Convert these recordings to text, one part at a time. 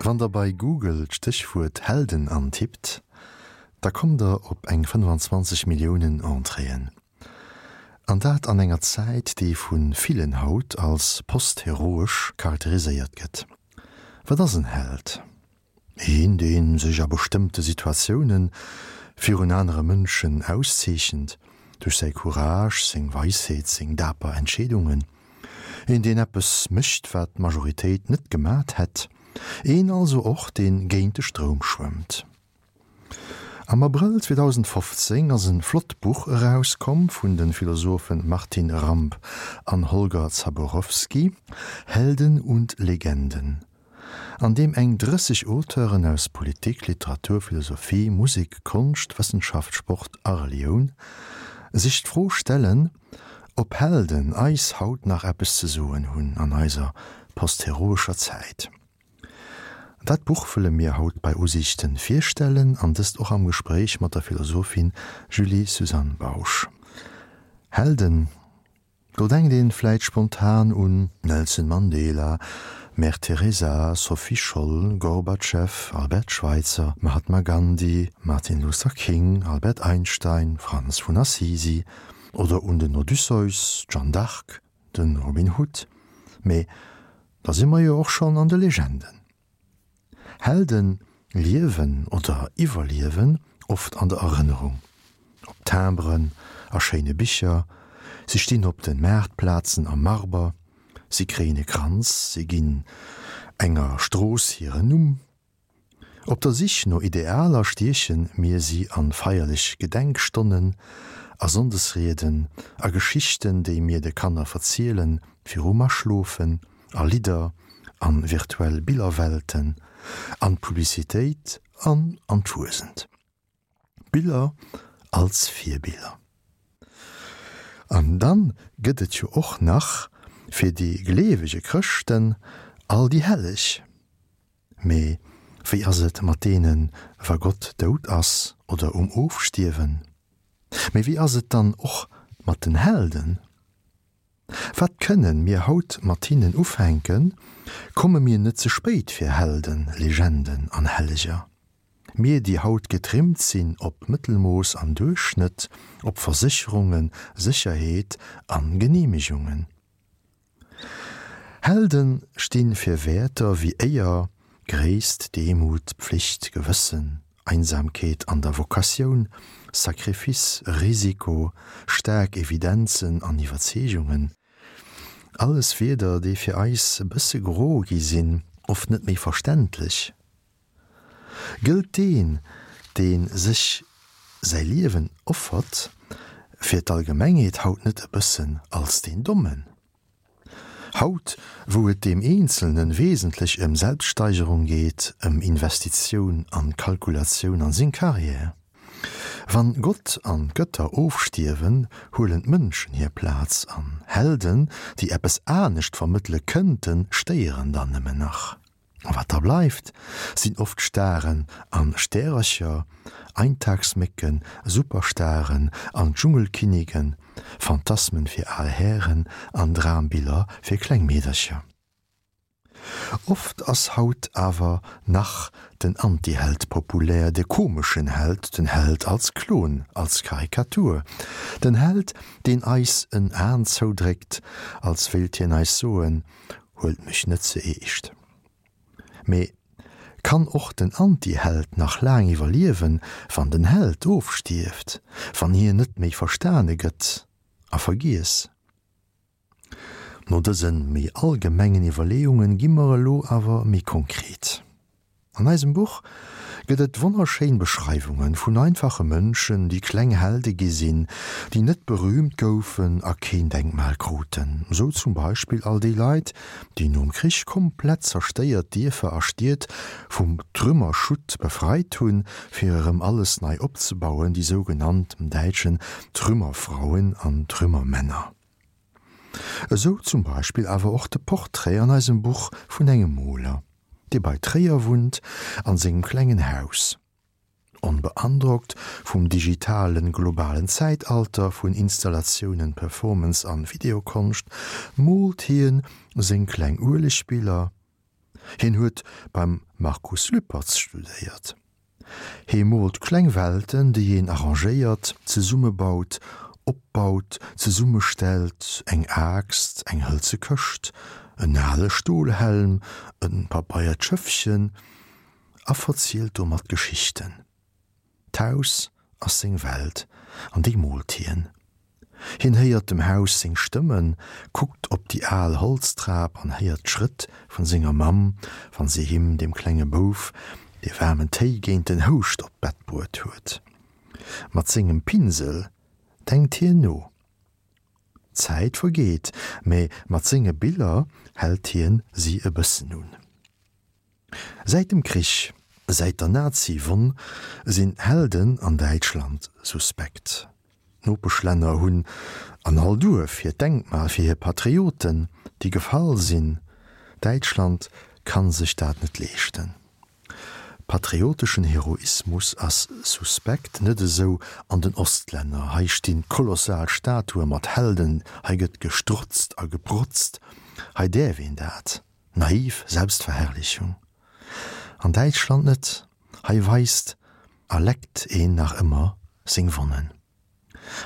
Wann der bei Google d'Stéchwuert Helden antippt, da kommt der op eng 25 Milliounen Entréeën. An dat an enger Zäit, déi vu villen haut als postheroesch charakteriséiert gëtt. Wat ass en Held? Een, dee sech a bestëmmte Situatioune virun anere Mënschen auszeechent, duerch säi Courage, seng Weisheet, seng daper Entscheedungen. Een, deen eppes mécht, wat d'Majoritéit net gemat hätt. Een also och, dee géint de Stroum schwëmmt. Am Abrëll 2015 ass en flott Buch erauskomm vun de Philosophen Martin Ramp an Holger Zaborowski, Helden und Legenden, an deem eng 30 Auteuren aus Politik, Literatur, Philosophie, Musek, Konscht, Wëssenschaft, Sport a Relioun sech d'Fro stellen, ob Helden eis haut nach eppes ze soen hunn an eiser postheroescher Zäit. Dat Buch wëlle mir haut bei Usiichten virstellen an dëst och am Gespréich mat der Philosophin Julie-Suzanne Bausch. Helden, do denkt een vläit spontan un Nelson Mandela, Mère Teresa, Sophie Scholl, Gorbatschew, Albert Schweitzer, Mahatma Gandhi, Martin Luther King, Albert Einstein, Franz vun Assisi oder un den Odysseus, d'Jeanne d'Arc, Den Robin Hood, mee da si mer jo och schonn an de Legenden. Helden liewen oder iwwerliewen oft an der Erënnerung, op Timberen, a schéine Bicher, si stinn op de Maartplazen am Marber, si kréien e Kranz, si ginn enger Strooss hiren Numm. Op der Sich no Idealer stieche mir si an feierlech Gedenkstonnen, a Sonndesrieden, a Geschichten, déi mir de Kanner verzielen virum Aschlofen, a Lidder, an virtuell Billerwelten, an d'Publicitéit an an d'Fuesent. Biller als Virbiller. An dann gëtt et jo och nach fir déi gleewege Chrëschten all déi Helleg. Mee wéi ass et mat deenen, wa Gott dout ass oder um Ofstierwen? Mee wéi ass et dann och mat den Helden? Wat kënnen mir haut mat hinnen ufänken? Komme mir net ze spéit fir Helden, Legenden an Helleger? Mir, déi haut getrimmt sinn op Mëttelmooss an Duerchschnëtt, op Versécherungen, Sécherheet an Genehmegungen. Helden sti fir Wäerter wéi Éier, Gréisst, Demut, Pflicht, Gewëssen, Einsamkeet an der Vokatioun, Sacrifice, Risiko, staark Evidenzen an Iwwerzeegungen. Alles Wierder, déi fir eis e bësse gro gi sinn, oft net méi verständlech. Gëllt deen, dee sech säi Liewen offert fir d'Allgemengheet haut net e bëssen als deen Dommen? Haut, wou et deem Eenzelnen wesentlech ëm Selbststeigerung geet, ëm Investitioun an Kalkulatioun an seng Carrière. Wann Gott an d'Gëtter ofstierwen, huelen d'Mënschen hir Plaz an. Helden, déi eppes anescht vermëttele kënnten, stéieren dann nëmmen nach. A wat da bleift, sinn oft Staren an Stärercher, Eintagsmécken, Superstaren an Dschungelkinnigen, Phantasmen fir al Hären an Drambiller fir kleng Meedercher. Oft ass haut awer nach den Antiheld populär, de komeschen Held, den Held als Klon, als Karikatur, den Held, deen eis en Aen zoudréckt, als wéilt hien eis soen, Huelt mech net ze eescht. Mee kann och den Anti-Held nach laang iwwerliewen, wann den Held ofstierft, wann hien net méi verstane gëtt a vergiess? No dëse méi allgemengen Iwwerleeungen gi mer elo awer méi konkret. An eisem Buch gëtt et wonnerschéin Beschreiwunge vun einfache Mënschen, déi kleng Helde gi sinn, déi net berüümt goufen a keen Denkmal kruten. Sou zum Beispill all déi Leit, déi nom Krich komplett zerstéiert Dierfer a Stied vum Trümmerschutt befreit hunn, fir erëm alles nei opzebauen, déi sougenannt däitschen Trümmerfrauen an Trümmermänner. Esou zum Beispill awer och de Portrait an eisem Buch vun engem Moler, dee bei Tréier wunnt, an sengem klengen Haus. Onbeandrockt vum digitalen, globalen Zäitalter vun Installatiounen, Performance an Videokonscht, moolt hien seng kleng Uelegbiller. Hien huet beim Markus Lüpertz studéiert. Hie moolt kleng Welten, déi een arrangéiert, zesummebaut, opbaut, zesummestellt, eng Aaxt, eng hëlze Këscht, en ale Stolhelm, e pabeiert Schëffchen, a verzielt domat Geschichten. D'Haus ass seng Welt, an déi moolt hien. Hien héiert dem Haus seng Stëmmen, kuckt op déi al Holztrap an héiert d'Schrëtt vun senger Mamm, wann si him, dem klenge Bouf, dee waarmen Téi géint den Houscht op d'Bett bruet huet. Mat sengem Pinsel denkt hien no. D'Zäit vergeet, mä mat senge Biller hält hien si e bëssen un. Säit dem Krich, säit der Nazi-Wonn, sinn Helden an Däitschland suspekt. D'Nopeschlänner hunn an all Duerf hiert Denkmal fir hir Patrioten, déi gefall sinn. Däitschland kann sech dat net leeschten. Patrioteschen Heroismus ass suspekt, net esou an den Ostlänner. Hei stinn kolossal Statue mat Helden, hei gëtt gestrotzt a geprotzt, hei däerf een dat. Naiv Selbstverherrlichung. An Däitschland net, hei weist a leckt een nach ëmmer seng Wonnen.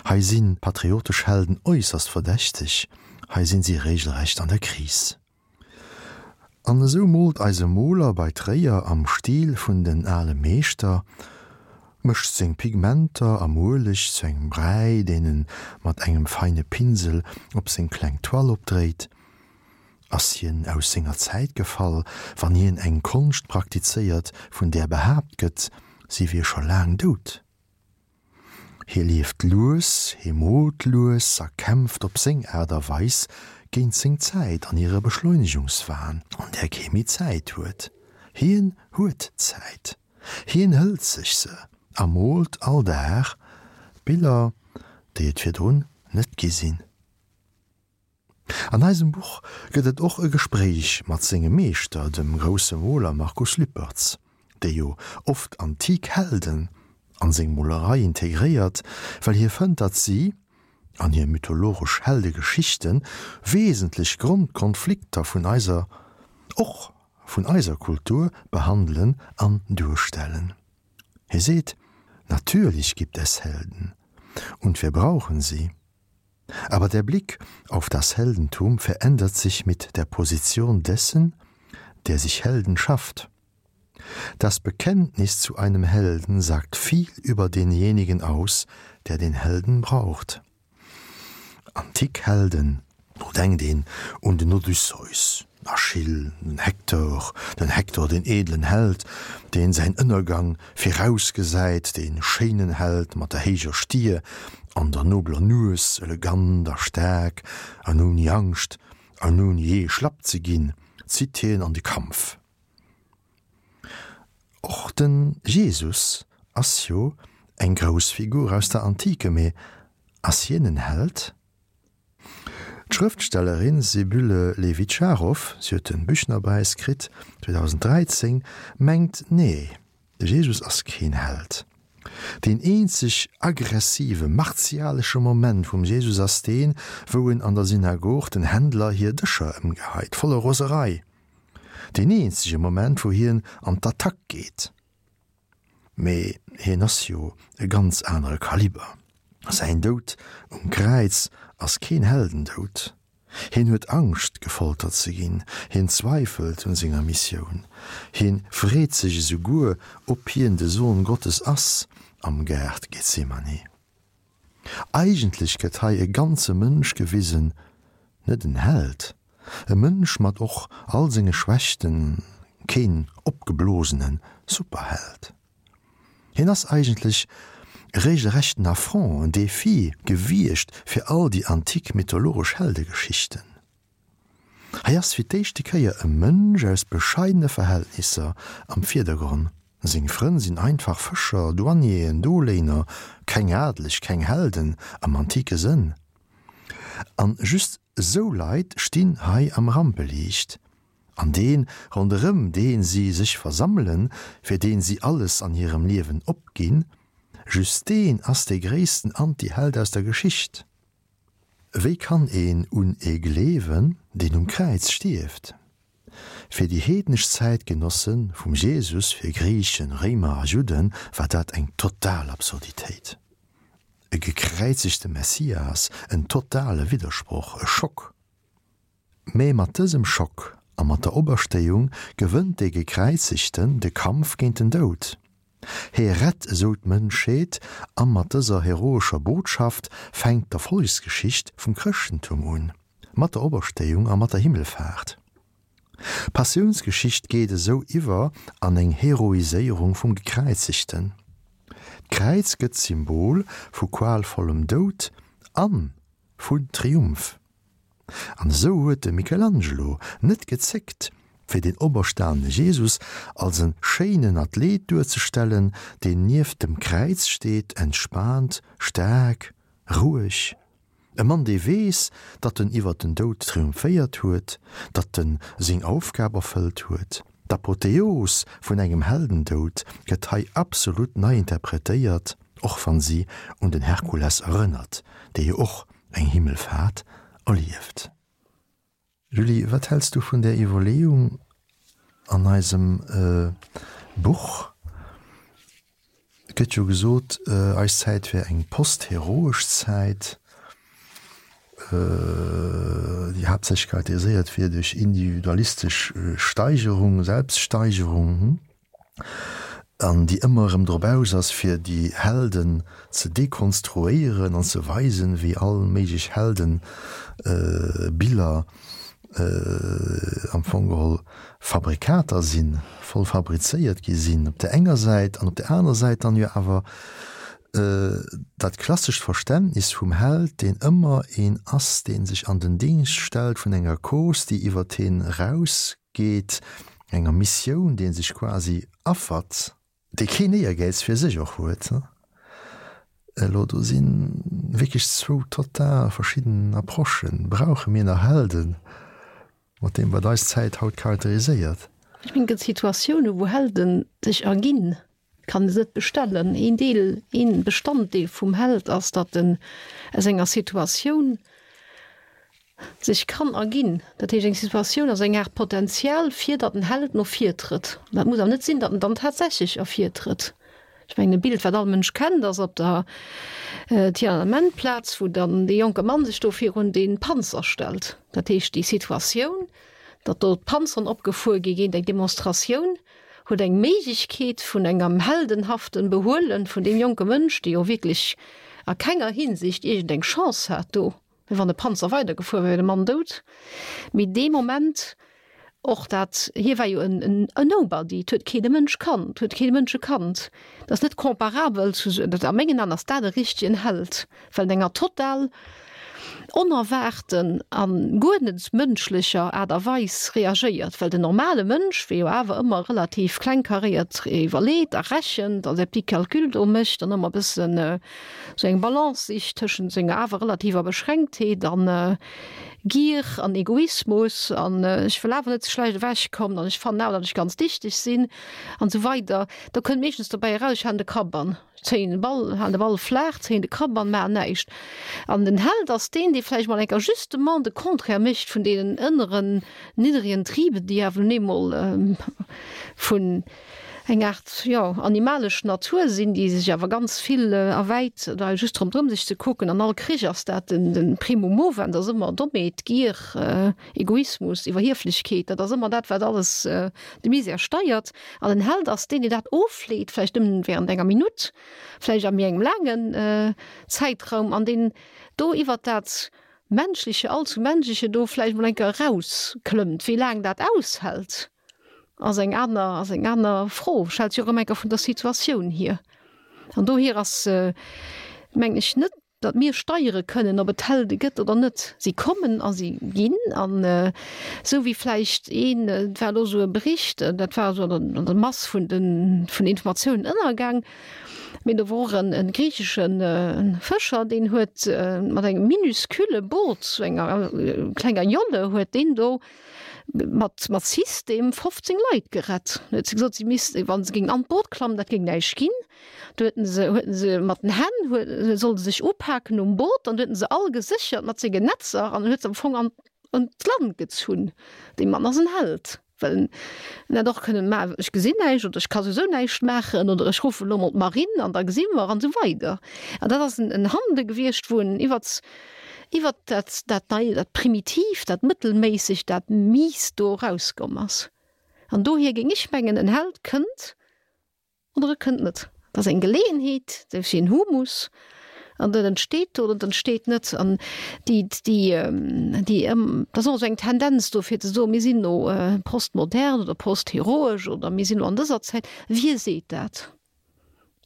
Hei si patriotesch Helden äusserst verdächteg, hei sinn si regelrecht an der Kris. An esou moolt eise Moler bei Tréier am Stil vun den ale Meeschter, mëscht seng Pigmenter am Ueleg zu engem Bräi, deen en mat engem feine Pinsel op seng kleng Toile opdréit, Ass hien aus senger Zäit gefall, wann hien eng Konscht praktizéiert, vun där behaapt gëtt, si wier scho laang dout? Hie lieft lues, hie moolt lues a kämpft op seng Aart a Weis géint seng Zäit an hire Beschleunegungswahn, an där kee méi Zäit huet. Hien huet Zäit. Hien hëlt sech se a moolt all Dag Biller, déi et virdrun net gi sinn. An eisem Buch gëtt et och e Gespréich mat sengem Meeschter, dem grousse Moler Markus Lüpertz, dee jo oft antik Helden an seng Molerei integréiert, well hie fënnt, datt si an hir mythologesch Heldegeschichten wesentlech Grondkonflikter vun eiser, och vun eiser Kultur behandelen an duerstellen. Hie seet, Natürlich gibt es Helden, und wir brauchen sie. Aber der Blick auf das Heldentum verändert sich mit der Position dessen, der sich Helden schafft. Das Bekenntnis zu einem Helden sagt viel über denjenigen aus, der den Helden braucht. Antik Helden, do denkt een un den Odysseus, den Achill, den Hektor, den Hektor, den edlen Held, deen säin Ënnergang virausgesäit, dee schéinen Held mat der héijer Stier an der nobeler Nues, elegant a staark an ouni Angscht an ouni jee schlapp ze ginn, zitt hien an de Kampf. Och de Jesus ass jo eng grouss Figur aus der Antike, mee ass hien en Held? D'Schrëftstellerin Sibylle Lewitscharoff, si huet de Büchnerpräis kritt 2013, mengt, Nee, de Jesus ass keen Held. Deen eenzeg aggressive, martialesche Moment vum Jesus ass deen, wou en an der Synagog den Händler hir Dëscher ëmgeheit, voller Roserei. Deen eenzege Moment, wou hien an d'Attack geet. Mee hien ass jo e ganz anere Kaliber. Säin Doud um Kräiz ass keen Heldendoud. Hien huet Angscht, gefoltert ze ginn. Hien zweifelt un senger Missioun. Hien freet sech esouguer, ob hien de Sohn Gottes ass am Gaart Gethsemane. Eigentlech gëtt hei e ganze Mënsch gewisen, net en Held, e Mënsch mat och all senge Schwächten, keen opgeblosene Superheld. Hien ass eigentlech e regelrechten Affront, en Defi gewiescht fir all déi antik mythologesch Heldegeschichten. Hei ass fir d'éischte Kéier e Mënsch aus bescheidene Verhältnisser am Virdergronn. Seng Frënn sinn einfach Fëscher, Douanieren, Doléiner, keng Adeleg, keng Helden am antike Sënn. An just esou Leit stinn hei am Rampeliicht. An deen, ronderëm dee si sech versammelen, fir deen si alles an hirem Liewen opginn, just deen ass dee gréissten Anti-Held aus der Geschicht. Wéi kann een un ee gleewen, deen um Kräiz stierft? Fir déi heednesch Zäitgenosse vum Jesus, fir Griichen, Réimer a Judden, war dat eng total Absurditéit. E gekräizegte Messias, en totale Widdersproch, e Schock. Mä mat dësem Schock a mat der Operstéiung gewënnt dee Gekräizegten de Kampf géint den Doud. Hee rett esou d'Mënschheet a mat dëser heroescher Botschaft fänkt d'Erfollegsgeschicht vum Chrëschtentum un, mat der Operstéiung a mat der Himmelfaart. D'Passiounsgeschicht geet esou iwwer an eng Heroiséierung vum Gekräizegten. D'Kräiz gëtt Symbol vu qualvollem Doud an vun Triumph. An esou huet de Michelangelo net gezéckt, fir den operstanene Jesus als e schéinen Athlet duerzestellen, deen nieft dem Kräiz steet, entspaant, staark, roueg. E Mann, dee weess, datt en iwwer den Doud triumphéiert huet, datt en seng Aufgab erfëllt huet. D'Apotheos vun engem Heldendoud gëtt hei absolut nei interpretéiert, och wann si un den Herkules erënnert, dee jo och eng Himmelfaart erlieft. Julie, wat häls du vun där Iwwerleeung an eisem Buch? Et gëtt jo gesot, eis Zäit wär eng postheroesch Zäit, déi haaptsächlech charakteriséiert wier duerch individualistesch Steigerung, Selbststeigerung. An déi ëmmer erëm drop aus ass, fir déi Helden ze dekonstruéieren an ze weisen, wéi all méiglech Heldenbiller am Fong geholl Fabrikater sinn, voll fabrizéiert gi sinn op där enger Säit, an op där anerer Säit dann jo awer dat klassescht Verständnis vum Held, deen ëmmer een ass, dee sech an den Dingscht stellt vun enger Cause, déi iwwert hien eraus Geet, enger Missioun, dee sech quasi affert, dee keen Éiergäiz fir sech och huet. Elo do si wierklech zwou total verschidden Approchen. Brauche mir nach Helden, mat deem wat eis Zäit haut charakteriséiert? Ech mengen, et gëtt Situatiounen, wou Helden sech erginn. Kann se net bestellen. Een Deel, een Bestanddeel vum Held ass, datt en aus enger Situatioun sech kann erginn. Dat heescht, eng Situatioun ass eng Aart Potenzial, fir datt en Held no vir trëtt. Dat muss awer net sinn, datt en dann tatsächlech ervirtrëtt. Ech mengen, e Bild, wat all Mënsch kennt, ass op der Tiananmen-Plaz, wou dann dee jonke Mann sech do virun dee Panzer stellt. Dat heescht, déi Situatioun, datt do d'Panzeren opgefuer gi géint eng Demonstratioun, huet eng Méiglechkeet vun engem heldenhaften Behuelen vun deem jonke Mënsch, dee jo wierklech a kenger Hinsicht iergendeng Chance hat do, well wann de Panzer weidergefuer wär, wär de Mann dout, mee dee Moment och dat, hie war jo en Nobody, et huet keen e Mënsch kannt, huet keen e Mënsch e kannt, dat ass net comparabel zu, a mengen An ass dat e richtegen Held, well en enger total onerwaarten a guer net mënschlecher Aart a Weis reagéiert, well den normale Mënsch, wee jo awer ëmmer relativ klengkaréiert iwwerleet a rechent a säi petit Calcul do mécht an ëmmer e bëssen esou eng Balance sicht tëschent senger awer relativer Beschränktheet a Gier an Egoismus an ech wëll awer net ze schlecht ewechkommen an ech fannen awer, datt ech ganz dichteg sinn an esou weider, do kënnt meeschtens dobäi eraus, ech halen de Kapp an. Zéien de Ball, halen de Ball flaach, zéien de Kapp an maachen näischt. An den Held ass deen, dee vläicht mol eng Kéier justement de Contraire mécht vun deenen ënneren niddregen Trieben, déi awer nun eemol vun eng Aart, jo, animalesch Natur sinn, déi sech awer ganz vill erwäit oder just ronderëm sech ze kucken. An all Krich ass dat den, den Primum movens ass ëmmer Dommheet, Gier, Egoismus, Iwwerhieflechkeet, dat ass ëmmer dat, wat alles de Misär steiert. An den Held ass deen, deen dat ofleet, vläicht nëmmen während enger Minutt, vläicht a méi engem laangen Zäitraum, an deen do iwwert dat Menschleche, allzu Menschleche do vläicht mol eng Kéier erausklëmmt. Wéi laang dat aushält, ass eng aner, ass eng aner Fro. Stellt sech och ëmmer eng Kéier vun der Situatioun hier. An dohier ass, mengen ech, net Datt mir steiere kënnen, ob et Helde gëtt oder net. Si kommen a si ginn. An esou wéi vläicht een, et war elo esou e Bericht, dat war esou an der Mass vun den Informatiounen ënnergaang, mee do wor och e griichesche Fëscher, deen huet mat engem minuscule Boot, sou enger klenger Jolle, huet deen do mat mat System 15 Leit gerett. Huet se gesot, si missten, wa se géingen an d'Boot klammen, dat géing näischt ginn. Do huet en se, huet en se mat den Hänn, huet, sollte sech upaken um Boot, an du huet en se all geséchert mat senge Netzer an huet se am Fong an. an d'Land gezunn. Dee Mann ass en Held, well en hätt och kënnen, ma ech gesinn näischt oder ech ka souwisou näischt maachen oder ech ruffen elo mol d'Marine an da gesi mer an esou weider. An dat ass en Handele gewiescht, wou en iwwert, iwwert dat, dat Nei, dat Primitiivt, dat Mëttelméissegt, dat Miist do erauskomm ass. An dohier géing ech mengen, en Held kënnt Oder e kënnt net. Et ass eng Geleeënheet, dat ass wéi en Humus, an dat entsteet do oder et entsteet net. An déi, déi, déi, dat ass och esou eng Tendenz do fir ze soen, mir sinn elo postmodern oder postheroesch oder mir sinn elo an dëser Zäit. Wie seet dat?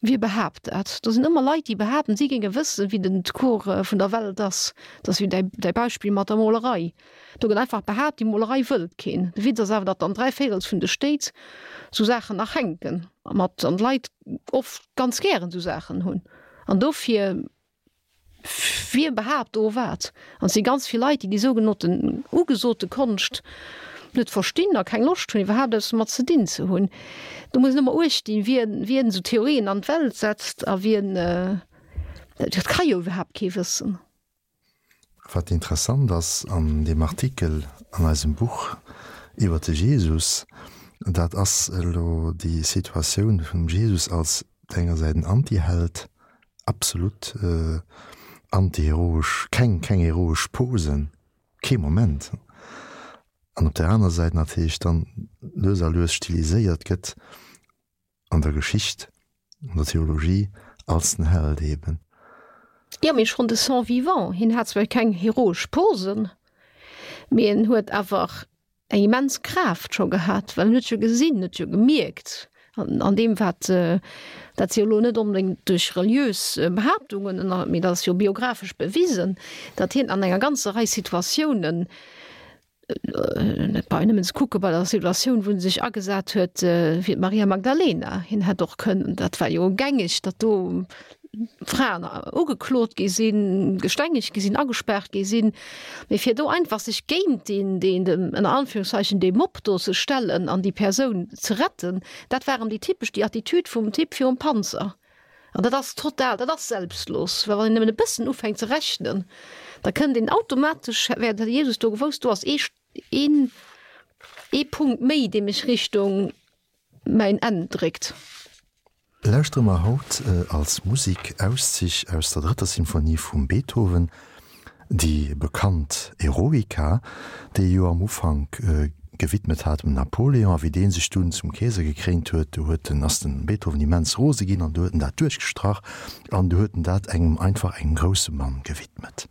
Wie behaapt dat? Do sinn ëmmer Leit, déi behaapten, si géinge wëssen, wéi den Cours vun der Welt ass. Dat ass wéi däi, däi Beispill mat der Molerei. Do gëtt einfach behaapt, déi Molerei wëllt keen. De Witz ass awer, datt an dräivéirels vun de Stéit sou Saachen nach hänken mat an d'Leit oft ganz gären sou Saachen hunn. An dofir, wie behaapt do wat? An et si ganz vill Leit, déi déi sougenannten ugesote Konscht net verstinn a keng Loscht hunn, iwwerhaapt eppes domat ze dinn ze hunn. Do muss een ëmmer uecht dinn, wien, wien esou Theorien an d'Welt setzt a wien, dat ka jo iwwerhaapt kee wëssen. Wat interessant ass an deem Artikel an eisem Buch iwwer de Jesus, dat ass elo déi Situatioun vum Jesus als op der enger Säit en Antiheld, absolut antiheroesch, keng keng heroesch Posen, kee Moment, an op der aner Säit natierlech dann lues a lues stiliséiert gëtt an der Geschicht, an der Theologie als den Held eben. Jo, mee schonn de son vivant, hien hat zwar keng heroesch Posen, mee en huet awer eng immens Kraaft scho gehat, well en huet jo gesinn, huet jo gemierkt an deem wat, dat si jo elo net onbedéngt duerch reliös Behaaptungen, mee dat ass jo biographesch bewisen, datt hien an enger ganzer Rei Situatiounen, Et brauch een nëmmen ze kucke bei der Situatioun, wou en sech agesat huet fir d'Maria Magdalena. Hien hätt och kënnen, dat war jo gängeg, datt do Fraen ugeklot gi sinn, gestengegt gi sinn, agespaart gi sinn, mee fir do einfach sech géint deen, deen, ënner Anführungszeichen, dee Mob do ze stellen an déi Persoun ze retten, dat war erëm déi typesch, déi Attitüd vum Typ virum Panzer. An dat ass total, dat ass selbstlos, well wann een nëmmen e bëssen ufänkt ze rechnen, da kënnt een automatesch, wär de Jesus do gewousst, do ass ee, een, ee Punkt méi, dee mech Richtung mäin Enn dréckt. Lauschtere mer haut als Musik Auszich aus der drëtter Symphonie vum Beethoven, Déi bekannt Eroica, déi e jo am Ufank gewidmet hat dem Napoléon, a wéi dee sech dunn zum Keeser gekréint huet, du huet en, ass den Beethoven immens rose ginn an du huet en dat duerchgestrach an du huet en dat engem, einfach engem grousse Mann gewidmet.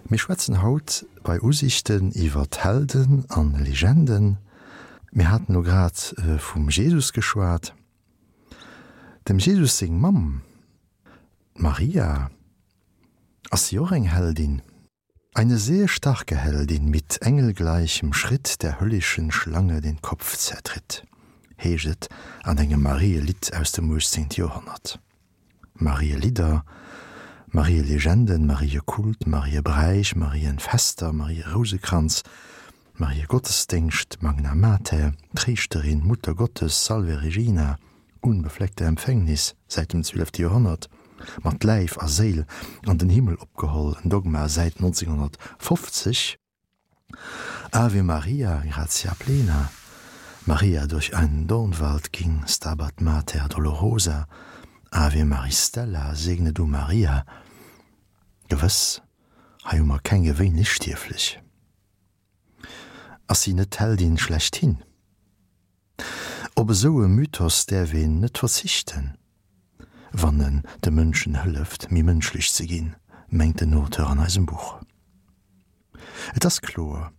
Mir schwätzen haut bei Usichten iwwer Helden an Legenden. Mir haten elo grad vum Jesus geschwat. Dem Jesus seng Mamm, d'Maria, ass si och eng Heldin? Eine sehr starke Heldin mit engelgleichem Schritt der höllischen Schlange den Kopf zertritt, heescht et an engem Marielidd aus dem 18. Joerhonnert. Marielidder, Marielegenden, Mariekult, Mariebräich, Marienfester, Marierousekranz, Mariegottesdéngscht, Magna Mater, Tréischterin, Muttergottes, Salve Regina, unbefleckte Empfängnis, säit dem 12. Joerhonnert, mat Läif a Séil an den Himmel opgeholl, en Dogma säit 1950. Ave Maria, gratia plena, Maria durch einen Dornwald ging, Stabat Mater dolorosa, Ave Maris Stella, segne du Maria. Gewëss, hei hu mer keng gewéinlech Stierflech. Ass si net d'Heldin schlechthin? Op esou e Mythos däerf een net verzichten, wann en de Mënschen hëlleft, méi mënschlech ze ginn, mengt den Auteur an eisem Buch. Et ass kloer,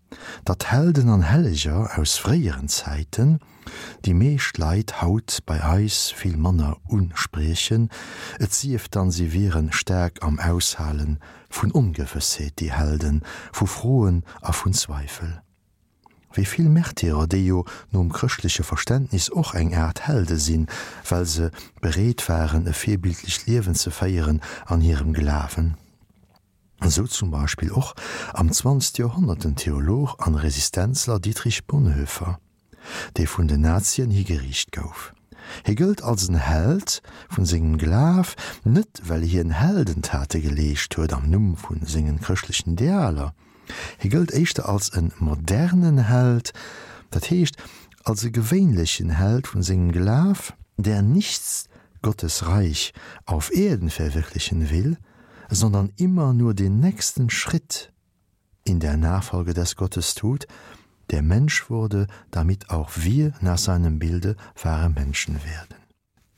datt Helden an Helleger aus fréieren Zäiten déi meescht Leit haut bei eis vill manner uspriechen, et sief dann si wieren staark am Aushale vun Ongewëssheet, déi Helden, vu Froen a vun Zweifel. Wéi vill Märtyrer, déi jo nom chrëschtleche Verständnis och eng Aart Helde sinn, well se bereet waren e virbildlecht Liewen ze féieren an hirem Glawen. Esou zum Beispill och am zwanzegste Joerhonnert den Theolog an Resistenzler Dietrich Bonhoeffer, dee vun den Nazien higeriicht gouf. Hie gëllt als en Held vun sengem Glaf, net well hien Heldentate geleescht huet am Numm vu sengen chrëschtlechen Idealer. Hie gëllt éischter als e modernen Held, dat heescht als e gewéinlechen Held vun sengem Glaf, der nicht Gottes Reich auf Erden verwirklichen will, sondern immer nur den nächsten Schritt in der Nachfolge des Gottes tut, der Mensch wurde, damit auch wir nach seinem Bilde wahre Menschen werden.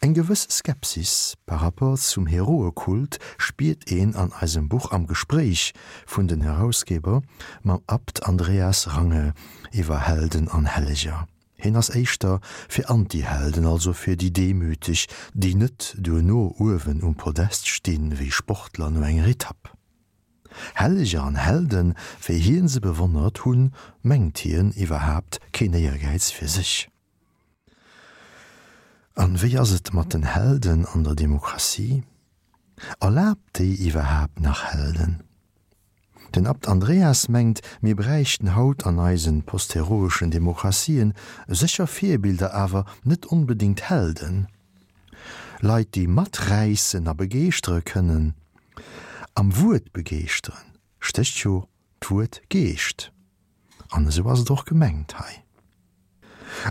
Eng gewëss Skepsis par rapport zum Heroekult spiert een an eisem Buch am Gespréich vun den Herausgeber mam Abt Andreas Range iwwer Helden an Helleger. Hien ass éischter fir Antihelden, also fir déi Demüteg, déi net duerno uewen um Podest stinn, wéi Sportler no enger Etapp. Helleger an Helden, wéi hien se bewonnert, hunn, mengt hien, iwwerhaapt keen Éiergäiz fir sech. An wéi ass et mat den Helden an der Demokratie? Erlaabt déi iwwerhaapt nach Helden? Den Abt Andreas mengt, mir bräichten haut an eisen postheroeschen Demokratien sécher Virbilder, awer net onbedéngt Helden. Leit, déi maträissen a begeeschtere kënnen. Am Wuert begeeschteren stécht jo d'Wuert Geescht. An esou ass et och gemengt hei.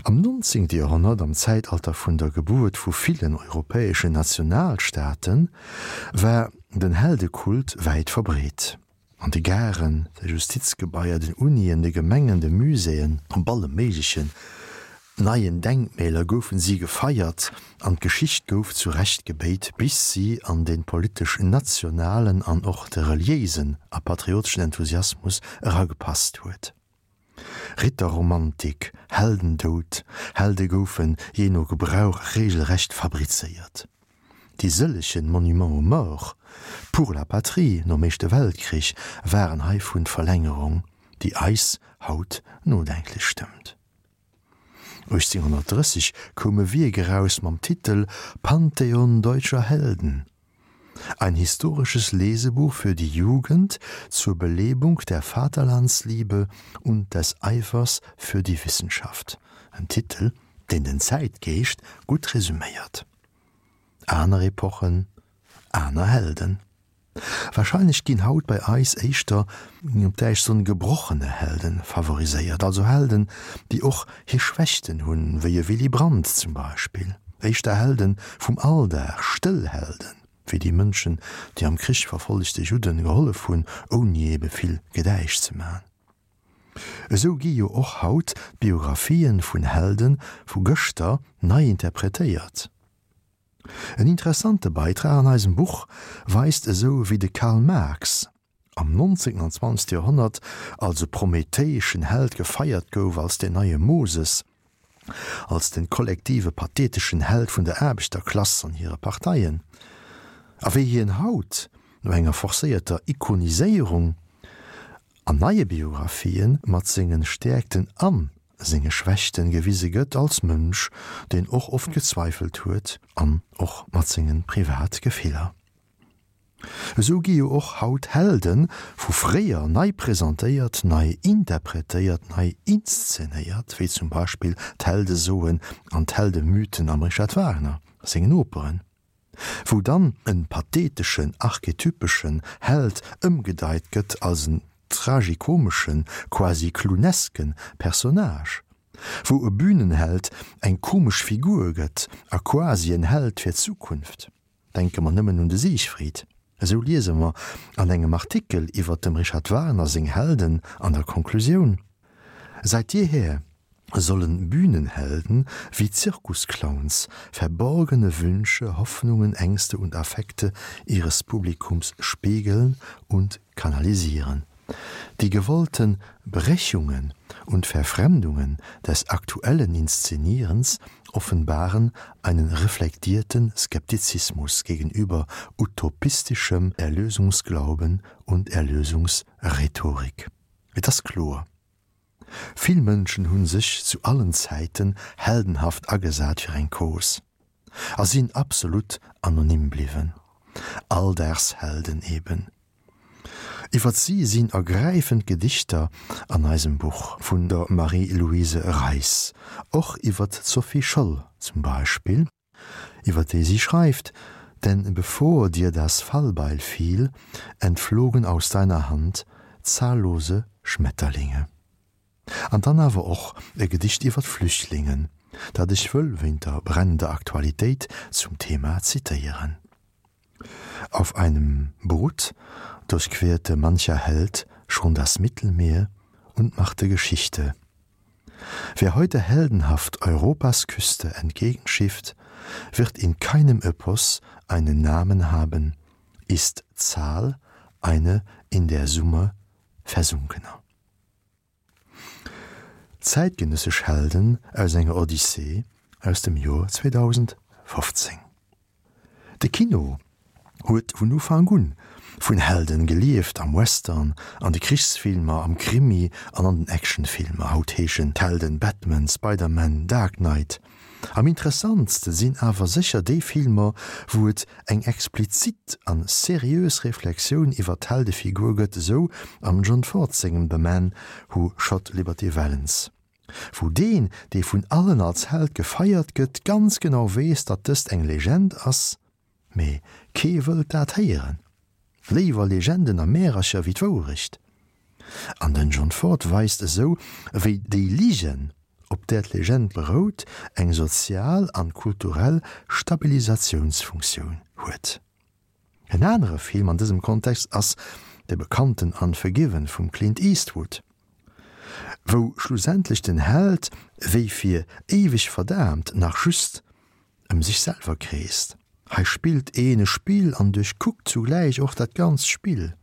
Am 19. Joerhonnert, am Zäitalter vun der Gebuert vu villen europäeschen Nationalstaaten, war den Heldekult wäit verbreet. An de Garen, de Justizgebaier, den Unien, de Gemengen, de Muséeën, op alle méiglechen neien Denkmäler goufen si gefeiert an d'Geschicht gouf zu Recht gebéit, bis si an de politesch nationalen an och de reliéisen a patrioteschen Enthusiasmus eragepasst huet. Ritterromantik, Heldendoud, Helde goufen jee no Gebrauch regelrecht fabrizéiert. Déi sëllegen Monuments aux morts pour la patrie nom Éischte Weltkrich waren heivun d'Verlängerung, déi eis haut nodenklech stëmmt. 1830 koum e Wierk eraus mam Titel Pantheon deutscher Helden, ein historisches Lesebuch für die Jugend zur Belebung der Vaterlandsliebe und des Eifers für die Wissenschaft, en Titel, deen den Zäitgeescht gutt resüméiert. Aner Epochen, aner Helden. Wahrscheinlech ginn haut bei eis éischter, op Däitsch soen, gebrochene Helden favoriséiert, also Helden, déi och hir Schwächten hunn, wéi e Willy Brandt zum Beispill, éischter Helden vum Alldag, stëll Helden, wéi déi Mënschen, déi am Krich verfollegte Judden gehollef hunn, ouni ebe vill Gedäisch ze man. Esou gi jo och haut d'Biographien vun Helden vu gëschter nei interpretéiert. En interessante Beitrag an eisem Buch weist esou wéi de Karl Marx. am 19. An 20. Joerhonnert als e prometheeschen Held gefeiert gouf, als den neie Moses, als den kollektive patheteschen Held vun der Aarbechterklass an hire Parteien, a wéi hien haut, no enger forcéierter Ikoniséierung an neie Biographien, mat sengen Stäerkten an senge Schwächten gewise gëtt, als Mënsch, deen och oft gezweifelt huet, an och mat sengen Privatgefiller. Esou gi jo och haut Helde vu fréier nei presentéiert, nei interpretéiert, nei inszenéiert, wéi zum Beispill d'Heldesoen an d'Heldemythen am Richard Wagner sengen Operen, wou dann en patheteschen, archetypeschen Held ëmgedeit gëtt als en tragikomeschen, quasi clownesken Personnage, wou e Bühnenheld eng komesch Figur gëtt a quasi en Held fir d'Zukunft. Denke mer nëmmen un de Siegfried. Esou liese mer an engem Artikel iwwer dem Richard Wagner seng Helden an der Konklusioun, Seit jeher sollen Bühnenhelden wie Zirkusclowns verborgene Wünsche, Hoffnungen, Ängste und Affekte ihres Publikums spiegeln und kanalisieren. Die gewollten Brechungen und Verfremdungen des aktuellen Inszenierens offenbaren einen reflektierten Skeptizismus gegenüber utopistischem Erlösungsglauben und Erlösungsrhetorik. Et ass kloer, Vill Mënschen hu sech zu allen Zäiten heldenhaft agesat fir eng Cause a sinn absolut anonym bliwwen. Alldagshelden eben. Iwwert si sinn ergräifend Gedichter an eisem Buch vun der Marie-Louise Reis, och iwwert d'Sophie Scholl zum Beispill, iwwer déi si schreift, Denn bevor dir das Fallbeil fiel, entflogen aus deiner Hand zahllose Schmetterlinge. An dann awer och e Gedicht iwwer d'Flüchtlingen, dat ech wëll wéint der brennender Aktualitéit zum Thema zitéieren. Auf einem Boot durchquerte mancher Held schon das Mittelmeer und machte Geschichte. Wer heute heldenhaft Europas Küste entgegenschifft, wird in keinem Epos einen Namen haben, ist Zahl eine in der Summe versunkener. Zäitgenëssesch Helden aus enger Odyssee aus dem Joer 2015. De Kino huet vun Ufank un vun Helden gelieft, am Western, an de Krichsfilmer, am Krimi an an den Actionfilmer. Haut heeschen d'Helden Batman, Spider-Man, Dark Knight. Am interessantste sinn awer sécher déi Filmer, wou et eng explizit an seriös Reflexioun iwwer d'Heldefigur gëtt, esou am John Ford sengem The Man Who Shot Liberty Valance, wou deen, dee vun allen als Held gefeiert gëtt, ganz genau weess, datt dëst eng Legend ass, Mee kee wëllt dat héieren. Léiwer Legenden a Märercher wéi d'Wourecht. An den John Ford weist esou, wéi déi Ligen, op där d'Legend berout, eng sozial an kulturell Stabilisatiounsfunktioun huet. En anere Film an dësem Kontext ass de bekannten Unforgiven vum Clint Eastwood, wou schlussendlech den Held wéi fir éiweg verdaamt nach just ëm sech selwer kreest. Hei spillt een e Spill an duerchkuckt zugläich och dat ganzt Spill.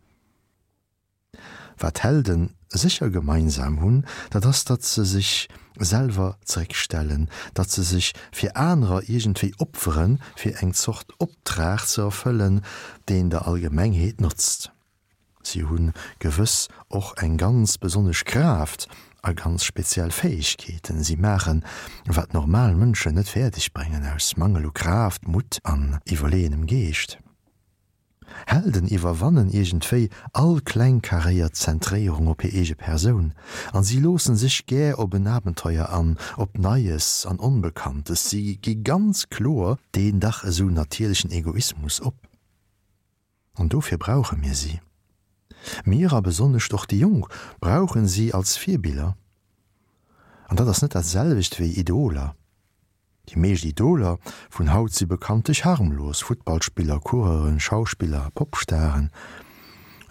Wat d'Helde sécher gemeinsam hunn, dat ass, datt se sech selwer zeréckstellen, datt se sech fir anerer iergendwéi opferen, fir eng Zort Optrag ze erfëllen, deen der Allgemengheet notzt. Si hu gewëss och eng ganz besonnesch Kraaft a ganz speziell Fäegkeeten. Si maachen, wat normal Mënschen net fäerdeg bréngen, aus Mangel u Kraaft, Mutt an iwwerleeënem Geescht. Helden iwwerwannen iergendwéi all klengkaréiert Zentréierung op hir eege Persoun an si loossen sech gär op en Abenteuer an, op Neies an Onbekanntes. Si gi ganz kloer deen dach esou natierlechen Egoismus op. An dofir brauche mir si. Mir, a besonnescht och déi Jonk, brauchen si als Virbiller. An dat ass net dat selwecht wéi Idoler. Déi meescht Idoler vun haut si bekanntlech harmlos, Futtballspiller, Coureuren, Schauspiller, Popstaren.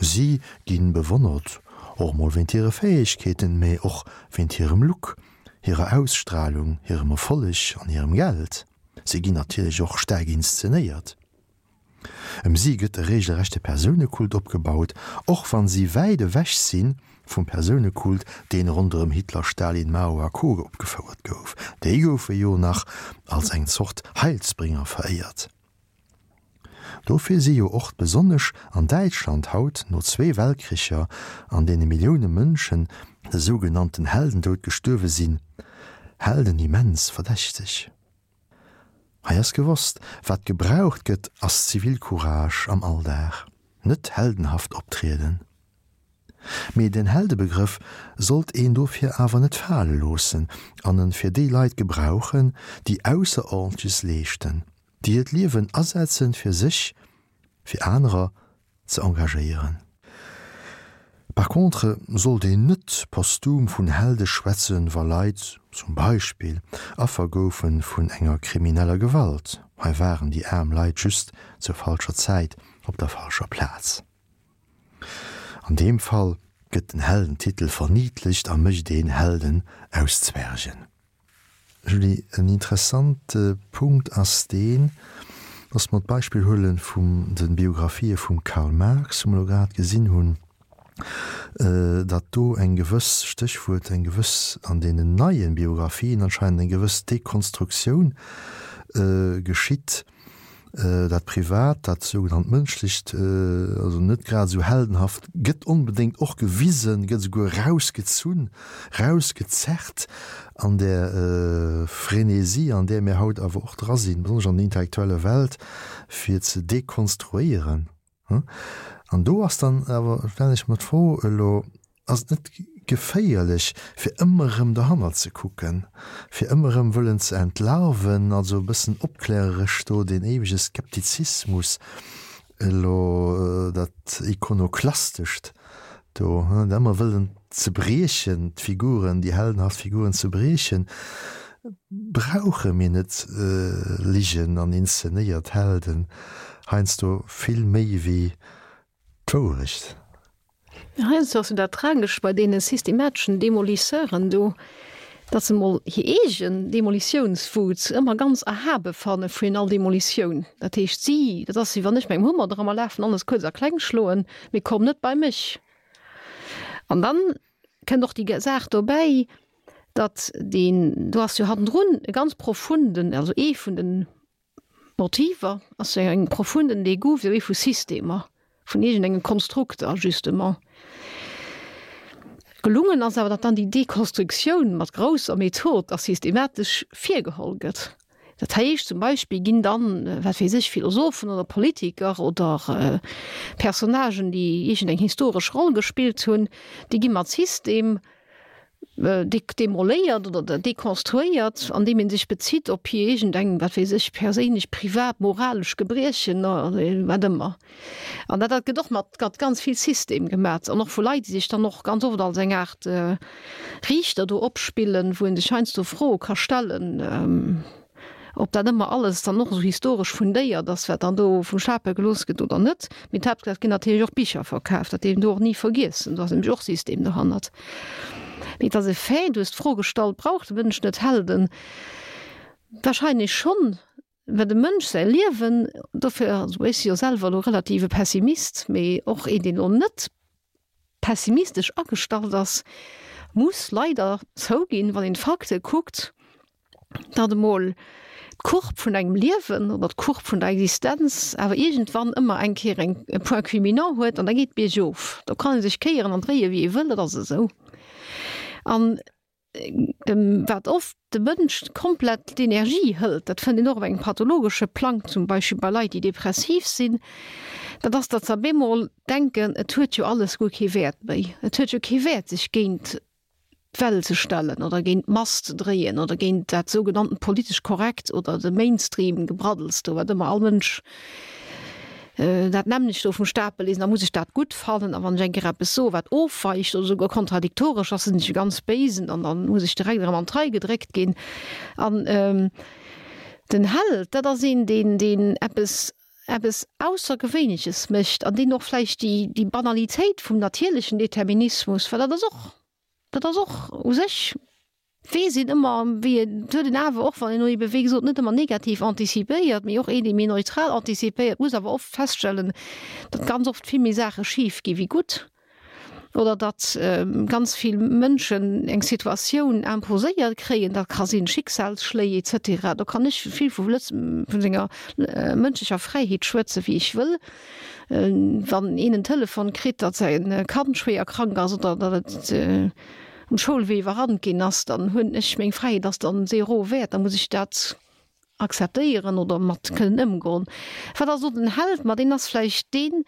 Si gi bewonnert, och mol wéint hire Fäegkeeten, mee och wéint hirem Look, hirer Ausstralung, hirem Erfolleg an hirem Geld. Si ginn natierlech och staark inszenéiert. Ëm si gëtt e regelrechte Persounekult opgebaut, och wann si wäit ewech si vum Persounekult, deen ronderëm Hitler, Stalin, Mao a Co. Opgefouert gouf. Déi goufe jo nach als eng Zort Heilsbringer veréiert. Dofir si jo och besonnesch an Däitschland haut, no zwee Weltkricher, an deene Millioune Mënschen de sougenannten Heldendoud gestuerwe sinn, Helden immens verdächteg. Hei ass gewosst, wat gebraucht gëtt, ass Zivilcourage am Alldag, net heldenhaft optrieden. Mee den Heldebegrëff sollt een dofir awer net fale loossen an en fir déi Leit gebrauchen, déi Ausserordentleches leeschten, déi hiert Liewen asetzen fir sech fir anerer ze engagéieren. Par contre sollt een net posthum vun Helde schwätzen, wa Leit, zum Beispill, Affer goufe vun enger krimineller Gewalt. Hei waren déi aarm Leit just zur falscher Zäit op der falscher Plaz. An deem Fall gëtt den Heldentitel verniedlecht a mécht een Helden aus Zwergen. Julie, en interessante Punkt ass deen, dass mer d'Beispill huele vum de Biographië vum Karl Marx, wou mer elo grad gesinn hunn, datt do eng gewëss, Stéchwuert, eng gewëss, an deenen neie Biographien anscheinend eng gewëss Dekonstruktioun geschitt, Dat Privat, dat sougenannt Mënschlecht, also net grad esou heldenhaft, gëtt onbedéngt och gewisen, gëtt esouguer rausgezunn, rausgezerrt an där Frénésie, an där mir haut awer och dra sinn, besonnesch an der intellektueller Welt, fir ze dekonstruéieren. An do ass dann awer, stellen ech mer d'Fro elo, Ass et net geféierlech, fir ëmmer erëm dohannert ze kucken, fir ëmmer erëm wëllen ze entlarven, also e bëssen opkläreresch do deen éiwege Skeptizismus elo, dat Ikonoklastescht do, dat ëmmer wëllen ze briechen, d'Figuren, déi heldenhaft Figuren ze briechen? Brauche mir net Ligen an inszenéiert Helden heiansdo vill méi wéi d'Wourecht? Heiansdo ass jo dat Tragescht bei deene systemateschen Demolisseuren do, datt se mol hir eegen Demolitiounswut ëmmer ganz erhabe fanne vun all Demolitioun. Dat heescht, si, dat ass wéi wann ech mengem Hummer dra mer lafen, alles kuerz a kleng schloen, mee komm net bei mech. An dann kënnt och déi Saach dobäi, datt deen, do ass jo hannendrun e ganz profunden, also ee vun den Motiver ass jo eng profunden Degoût vis-à-vis vu Systemer, vun iergendenge Konstrukter justement. Gelungen ass awer, datt dann déi Dekonstruktioun mat grousser Method a systematesch virgeholl gëtt. Dat heescht zum Beispill ginn dann, wat weess ech, Philosophen oder Politiker oder Personnagen, déi iergendeng historesch Roll gespillt hunn, déi gi mat System demoléiert oder dekonstruéiert, andeem ee sech bezitt op hir iergendeng, wat weess ech, perséinlech, privat, moralesch Gebriechen oder wat ëmmer. An dat dat gëtt och mat mat ganz vill System gemat an och vu Leit, déi sech dann och ganz oft als eng Aart Riichter do opspillen, wou ee sech heiansdo Froe ka stellen. Ob dat ëmmer alles dann och esou historesch fundéiert ass, wat dann do vum Stapel gelooss gëtt oder net. Mee d'Haaptsaach, et ginn natierlech och Bicher verkaf, dat dierf een do och ni vergiessen. Do ass nämlech och System dohannert. Mee et ass e Fait, du hues d'Fro gestallt, Brauch de Mënsch net Helden? Wahrscheinlech schonn, well dem Mënsch säi Liewen, dofir, also ech si jo selwer elo relativ e Pessimist, mee och een, deen elo net pessimistesch agestallt ass, muss leider zouginn, wann een d'Fakte kuckt, datt emol d'Courbe vun engem Liewen oder d'Courbe vun der Existenz awer iergendwann ëmmer eng Kéier eng e Point culminant huet an da geet biergof. Do kann ee sech kéieren an dréie wéi ee wëll, dat ass esou. An dem wat oft de Mënsch komplett d'Energie hëlt, dat fënnt een och op engem pathologesche Plang, zum Beispill bei Leit déi depressiv sinn, dat ass, datt se op eemol denken, et huet jo alles guer kee Wäert méi, et huet jo kee Wäert sech géint d'Well ze stellen oder géint d'Mass ze dréien oder géint dat sougenannten politesch korrekt oder de Mainstream-Gebraddels do, wat ëmmer all Mënsch dat nämmlecht do vum Stapel liest, da muss ech dat gutt fannen a wann ech eng Kéier eppes soe wat ofweicht oder esouguer kontradiktoresch ass, sinn ech e ganz Béisen an da muss ech direkt erëm an d'Rei gedréckt ginn. An den Held, dat ass een, deen, deen eppes eppes Aussergewéinleches mécht an deen och vläicht déi, déi Banalitéit vum natierlechen Determinismus, well dat ass och, dat ass och u sech. Weess een ëmmer, wéi et huet een awer, och wann een elo ebe wéi gesot net ëmmer negativ antizipéiert, mee och een, dee méi neutral antizipéiert, muss awer oft feststellen, datt ganz oft vill méi Saache schif gi wéi gutt oder datt ganz vill Mënschen eng Situatioun imposéiert kréien, dat ka sinn Schicksalsschléi et cetera. Do kann ech vill vu Lëtz vun senger mënschlecher Fräiheet schwätze wéi ech wëll. Wann een en Telefon kritt, datt säi Kand schwéier krank ass oder datt et um Schoulwee iwwerrannt ginn ass, dann hunn ech meng Fräiheet ass dann zéro wäert, da muss ech dat akzeptéieren oder mat kënnen ëmgoen. Wat ass do den Held? Ma deen ass vläicht deen,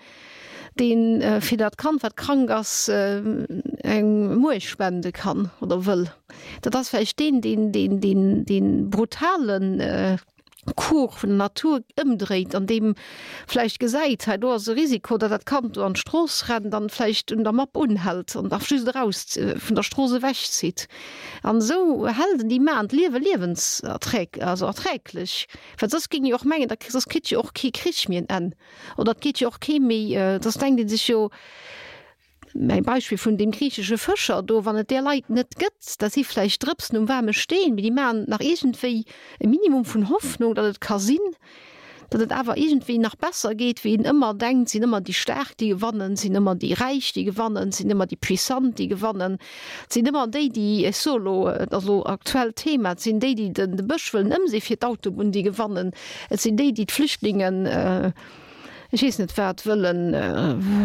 dee fir dat Kand, wat krank ass, eng Muerch spende kann oder wëll. Dat ass vläicht deen, deen deen deen dee brutalen Cours vun der Natur ëmdréit an deem vläicht gesäit, hei do ass e Risiko, datt dat Kand do an d'Strooss rennt an vläicht un der Mapp unhält an da just eraus vun der Strooss ewechzitt. An esou Helden, déi maachen d'Liewe liewenserträg, also erträglech, well soss géing jo och mengen, da soss kritt jo och kee Krich méi en Enn oder et geet jo och kee méi, soss denkt ee sech jo, Mäi Beispill vun deem griichesche Fëscher do, wann et där Leit net gëtt, dat si vläicht Drëpsen um waarme Steen, mee déi maachen nach iergendwéi e Minimum vun Hoffnung, datt et ka sinn, datt et awer iergendwéi nach besser geet, wéi een ëmmer denkt, sinn ëmmer déi Staark, déi gewannen, sinn ëmmer déi Räich, déi gewannen, sinn ëmmer déi Puissant, déi gewannen, sinn ëmmer déi, déi, ech soe elo, et ass elo aktuellt Thema, et sinn déi, déi de Bësch wëllen ëmsee fir d'Autobunn, déi gewannen, et sinn déi, déi d'Flüchtlingen, ech weess net wat, wëllen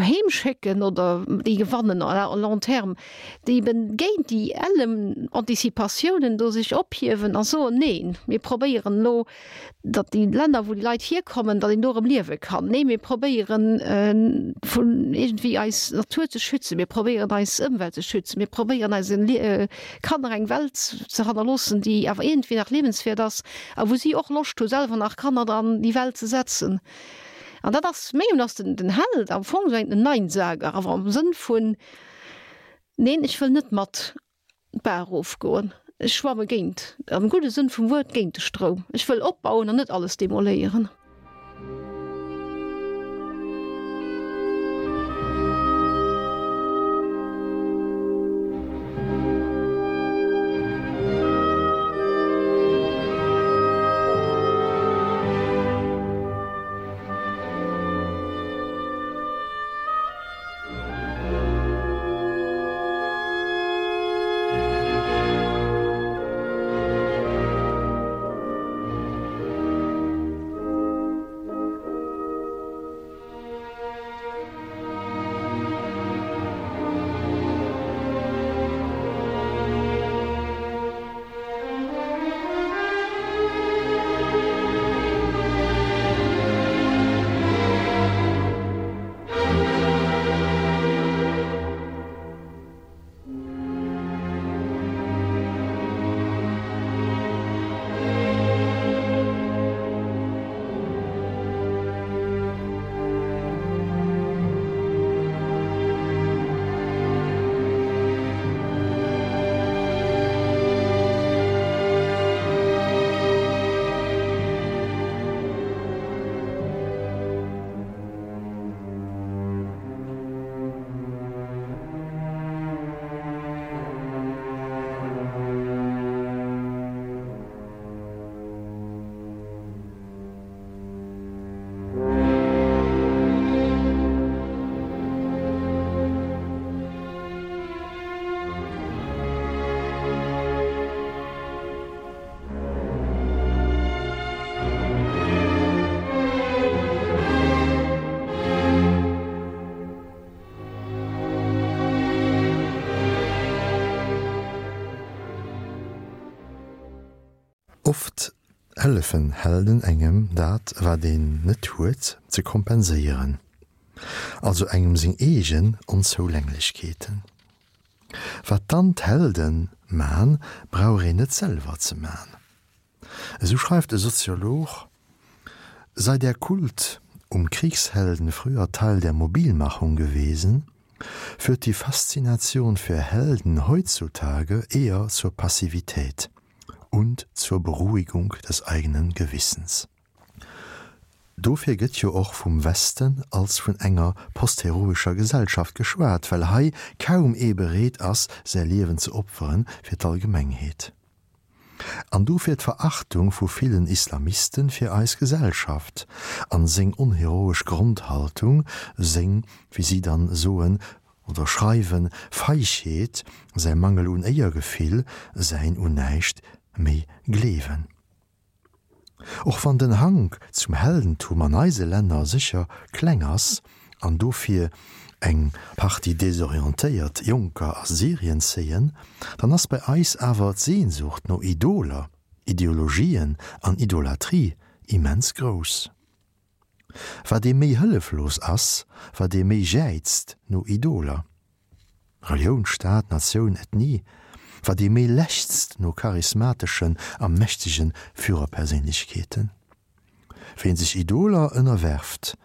heem schécken oder déi gewannen à long terme, déi eben géint déi ellem Anticipatiounen do sech ophiewen a soen, neen, mir probéieren elo, datt déi Länner, wou déi Leit hierkommen, datt een do erëm liewe kann. Nee, mir probéieren vun iergendwéi eis Natur ze schützen, mir probéieren eis Ëmwelt ze schützen, mir probéieren eise Kanner eng Welt ze hannerloossen, déi awer iergendwéi nach liewenswäert ass a wou si och Loscht hu selwer nach Kanner an déi Welt ze setzen. An dat ass, mengem ass den, den Held am Fong esou en Neinsager, awer am Sënn vun, Neen, ech wëll net mat d'Baach erofgoen, ech schwamme géint, am gudde Sënn vum Wuert, géint de Stroum, ech wëll opbauen an net alles demoléieren. Oft hëllefen Helden engem dat wat een net huet ze kompenséieren, also engem seng eegen Onzoulänglechkeeten. Wat dann d'Helden man, brauch een net selwer ze man. Esou schreift e Soziolog, Sei der Kult um Kriegshelden früher Teil der Mobilmachung gewesen, führt die Faszination für Helden heutzutage eher zur Passivität und zur Beruhigung des eigenen Gewissens. Dofir gëtt jo och vum Westen als vun enger postheroescher Gesellschaft geschwat, well hei kaum ee bereet ass, säi Liewen ze opferen fir d'Allgemengheet. An dofir d'Verachtung vu villen Islamisten fir eis Gesellschaft an seng onheroesch Grondhaltung, seng, wéi si dann soen oder schreiwen, Feigheet, säi Mangel un Éiergefill, säin un näischt méi gleewen. Och wann den Hank zum Heldentum an eise Länner sécher kleng ass an dofir eng Partie desorientéiert Jonker a Syrien zéien, dann ass bei eis awer d'Sehnsucht no Idoler, Ideologien an Idolatrie immens grouss. Wat ee méi hëlleflos ass, wat ee méi jäizt no Idoler, Relioun, Staat, Natioun, Ethnie, wat ee méi lechzt no charismateschen a mächtege Führerperséinlechkeeten. Ween sech Idoler ënnerwerft,